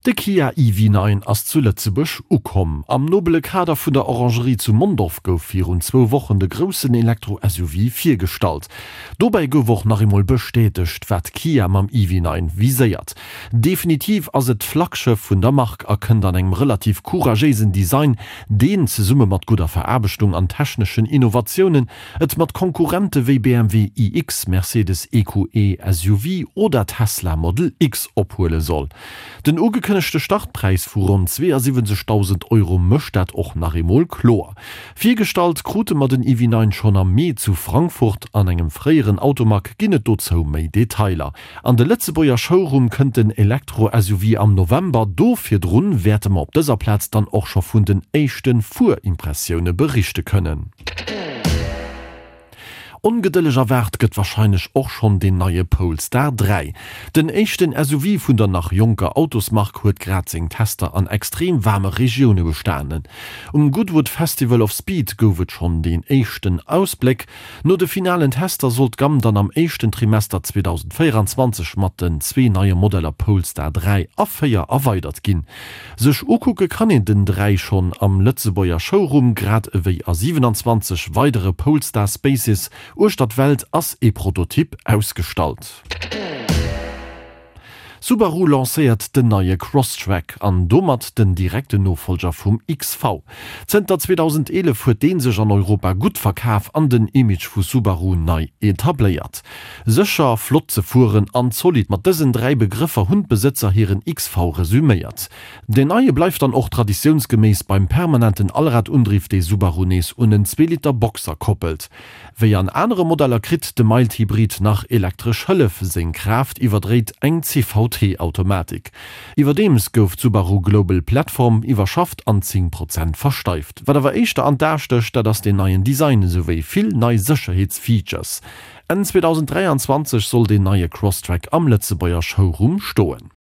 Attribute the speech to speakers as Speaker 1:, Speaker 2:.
Speaker 1: De Kia EV9 ass zu Lëtzebuerg ukomm. Am nobele Kader vun der Orangerie zu Mondorf gouf virun zwou Wochen de groussen Elektro-SUV virgestallt. Dobäi gouf och nach eemol bestätegt, wat Kia mam EV9 viséiert. Definitiv ass et d'Flaggschëff vun der Mark a kënnt an engem relativ couragéisen Design, deen, zesumme mat gudder Veraarbechtung an techneschen Innovatiounen, et mat Konkurrente wéi BMW iX, Mercedes EQE SUV oder Tesla Model X ophuele soll. Den ugekënnegte Startpräis vu ronn 72.000 Euro mécht dat och nach eemol kloer. Virgestallt krute mer den EV9 schonn am Mee zu Frankfurt. An engem fréieren Automag ginn et dozou méi Detailer. An de Lëtzebuerger Showroom kënnt den Elektro-SUV am November. Do virdrun wäerte mer op dëser Plaz dann och scho vun den éischte Fuerimpressioune berichte kënnen. Ongedëlleg erwaart gëtt warscheinlech och schonn deen neie Polestar 3. Den éischten SUV vun der nach jonker Autosmark huet grad seng Tester an extrem waarme Regioune bestanen. Um Goodwood Festival of Speed gouf et schonn deen éischten Ausbléck. No de finalen Tester soll d'Gamm dann am éischten Trimester 2024 mat den zwee neie Modeller Polestar 3 a 4 erweidert ginn. Sech ukucke kann een den 3 schonn am Lëtzebuerger Showroom, grad ewéi a 27 weidere Polestar Spaces uechter d'Welt ass ee Prototyp ausgestallt. Subaru lancéiert den neie Crosstrek an domat den direkten Nofollger vum XV. Zënter 2011 huet dee sech an Europa gutt verkaf an den Image vu Subaru nei etabléiert. Sécher, flott ze fueren an zolidd, mat dësen 3 Begrëffer hunn d'Besëtzer hiren XV resuméiert. Deen neie bleift dann och traditiounsgeméiss beim permanenten Allradundriff, dee Subaru nees un en Zweeliter Boxer koppelt. Wéi an anere Modeller kritt de Mild-Hybrid nach elektresch Hëllef, seng Kraaft iwwerdréit eng CVT-Automatik. Iwwerdeems gouf d'Subaru Global Platform iwwerschafft an 10 Prozent versteift. Wat awer éischter an d'A stécht, dat ass deen neien Design esouwéi vill nei Sécherheetsfeatures. Enn 2023 soll deen neie Crosstrek am Lëtzebuerger Showroom stoen.